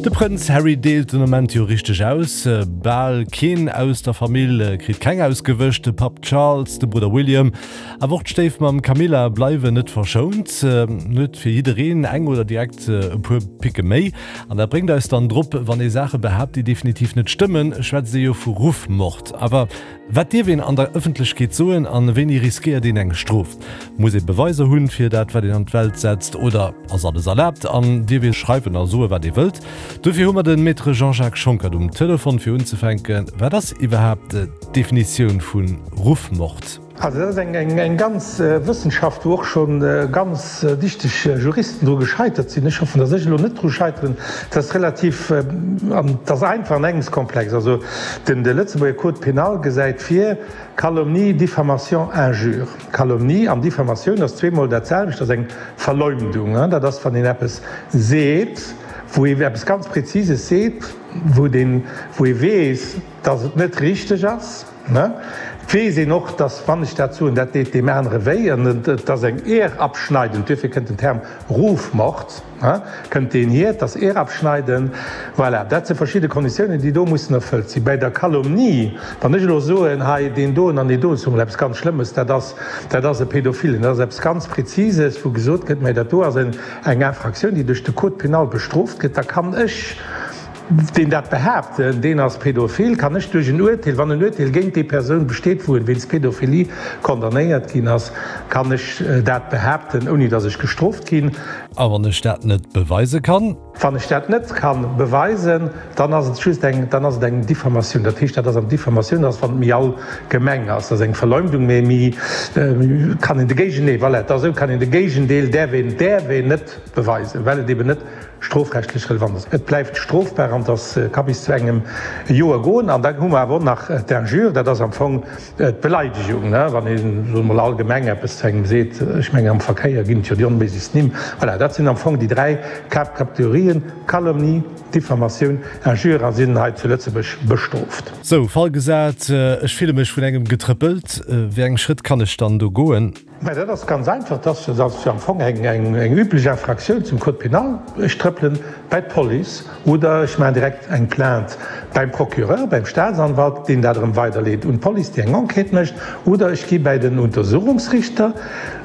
De Prënz Harry deelt den Ament jo richteg aus. Bal keen aus der Famill kritt keng ausgewëscht. De Papp Charles, de Brudder William, awer och d'Stéifmamm Camilla bleiwen net verschount. Huet fir jiddereen eng oder direkt e puer Picke méi. An dat bréngt eis dann drop, wann ee Saache behaapt, déi definitiv net stëmmen, schwätzt ee jo vu Ruffmord. Awer Wat dierf een an der Ëffentlechkeet soen an wéini riskéiert een eng Strof? Muss ee Beweiser hunn fir dat wat een an d'Welt setzt oder ass alles erlaabt an dierf ee schreiwen a soe wat ee wëllt? Dofir hu mer den Maître Jean-Jacques Schonckert um Telefon fir unzefänken. Wat ass iwwerhaapt d'Definitioun vu Ruffmord? Also dat ass eng ganz Wëssenschaft, wou och scho ganz dichteg Juristen dru gescheitert sinn. Ech hoffen, datt ech elo net dru scheiteren. Dat ass relativ, an et ass einfach an engems komplex. Also den de Lëtzebuerger Code pénal gesäit vir, Calomnie, Diffamation, Injure. Calomnie an Diffamatioun ass zweemol dat selwecht, dat ass eng Verleumdung. Dat ass, wann een eppes seet, wou ee eppes ganz Präzises seet, wou deen, wou ee weess, datt et net richteg ass. Ne? Et weess een och, dass, wann ech dat soen, dat deet deem anere wéi an et ass eng Ehrabschneidend, duerfir kënnt den Term Rufmord, ne, kënnt deen hier, et ass Ehrabschneiden. Voilà, dat si verschidde Konditiounen, déi do mussen erfëllt sinn. Bäi der Calomnie, wann ech elo soen, hei deen doen an deen doen, ech soe mol eppes ganz Schlëmmes, dat ass, dat ass e Pädophilen, dat ass eppes ganz Präzises, wou gesot gëtt, mä dat do ass eng Infraktioun, déi duerch de Code pénal bestrooft gëtt, da kann ech, Deen dat behaapt, deen ass pädophil, kann ech duerch en Urteel, wann en Urteel géint déi Persoun besteet, wou en wéinst Pädophilie condamnéiert ginn ass, kann ech dat behaapten, ouni datt ech gestrooft ginn. A wann ech dat net beweise kann? Wann ech dat net kann beweisen, dann ass et just eng, dann ass et eng Diffamatioun. Dat heescht, dat ass an Diffamatioun, dat ass wann et méi allgemeng ass, dat ass eng Verleumdung, mee méi kann een de Géigendeel, voilà, et ass esou, kann een de Géigendeel däerf een, däerf een net beweisen, well et eben net strofrechtlech relevant ass. Et bleift strofbar an dass ka bis zu engem Joer goen. An da hu mer awer och nach d'Injure, dat ass am Fong d'Beleidegung, wann ee soe mol allgemeng eppes zu engem seet. Ech mengen am Verkéier ginn et jo déi onméiglechst Nimm. Voilà, dat sinn am Fong déi dräi Haaptkategorien, Calomnie, Diffamatioun, Injure a sinn hei zu Lëtzebuerg bestrooft. Sou, Fall gesat, ech fille mech vun engem getrëppelt. Wéi eng Schrëtt kann ech dann do goen? Mä dat ass ganz einfach, dat ass jo am Fong eng üblech Infraktioun zum Code pénal. Ech trëppelen bei d'Police oder ech maachen direkt eng Plainte beim Procureur, beim Staatsanwalt, deen dat erëm weiderleet un d'Police, déi eng Enquête mécht, oder ech gi bäi den Untersuchungsrichter.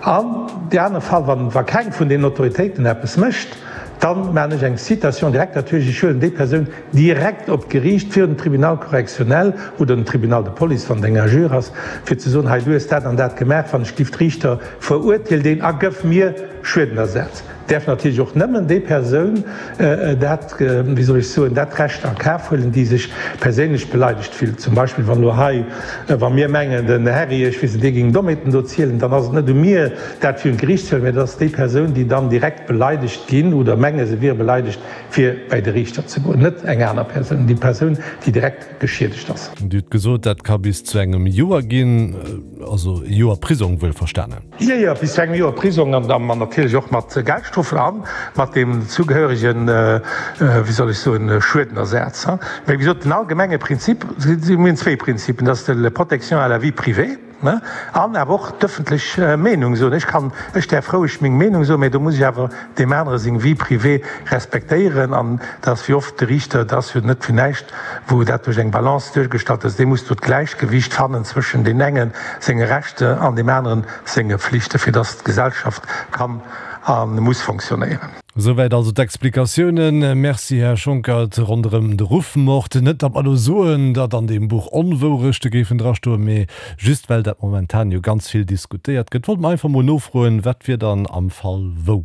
An dee anere Fall, wa keng vun deenen Autoritéiten eppes mécht, da maachen ech eng Citation directe, dat heescht, ech huelen déi Persoun direkt op d'Geriicht, virun den Tribunal correctionnel oder den Tribunal de police, wann et eng Injure ass, fir ze soen, hei du hues dat an dat gemaach, wann ech giff d'Riichter verurteel deen a gëff mir Schuedenersatz. Däerf natierlech och nëmmen déi Persoun dat, wéi soll ech soen, dat Recht a Kaf huelen, déi sech perséinlech beleidegt fillt. Zum Beispill wann elo hei, wa mir mengen, den Herri, ech weess net, dee géing Dommheeten do zielen, dann ass et net u mir, dat virun d'Geriicht ze huelen, mä dat ass déi Persoun, déi dann direkt beleidegt ginn oder menge se wier beleidegt, fir bäi de Riichter ze goen, net eng aner Persoun, déi Persoun, déi direkt geschiedegt ass. Dir hutt gesot, dat ka bis zu engem Joer ginn, also e Joer Prisong wuelverstanen. Jo, jo, bis zu engem Joer Prisong an da natierlech och mat Geldstrofen a mat deem zugehöregen, wéi soll ech soen, Schuedenersaz. Mä wéi gesot, den allgemenge Prinzip, mir hunn zwéi Prinzipen, dat ass de Protection à la vie privée, An awer och d'ëffentlech Meenung soen. Ech kann, ech däerf roueg meng Meenung soen, mä do muss ech awer deem anere seng Vie privée respektéieren. An dat ass wéi oft de Riichter, dat ass jo net fir näischt, wou dat duerch eng Balance duergestallt ass, dee muss do d'Gläichgewicht fannen zwëschen deem enge senge Rechte an deem aneren senge Flichten, fir datt d'Gesellschaft kann a muss fonctionnéieren. Souwäit also d'Explikatiounen. Merci, Här Schonckert. Ronderëm de Ruffmord, net datt mer elo soen, datt an deem Buch Onwourechte géifen drastoen, mee just well dat momentan jo ganz vill diskutéiert gëtt, wollte mer einfach mol nofroen, wat wier dann am Fall wou?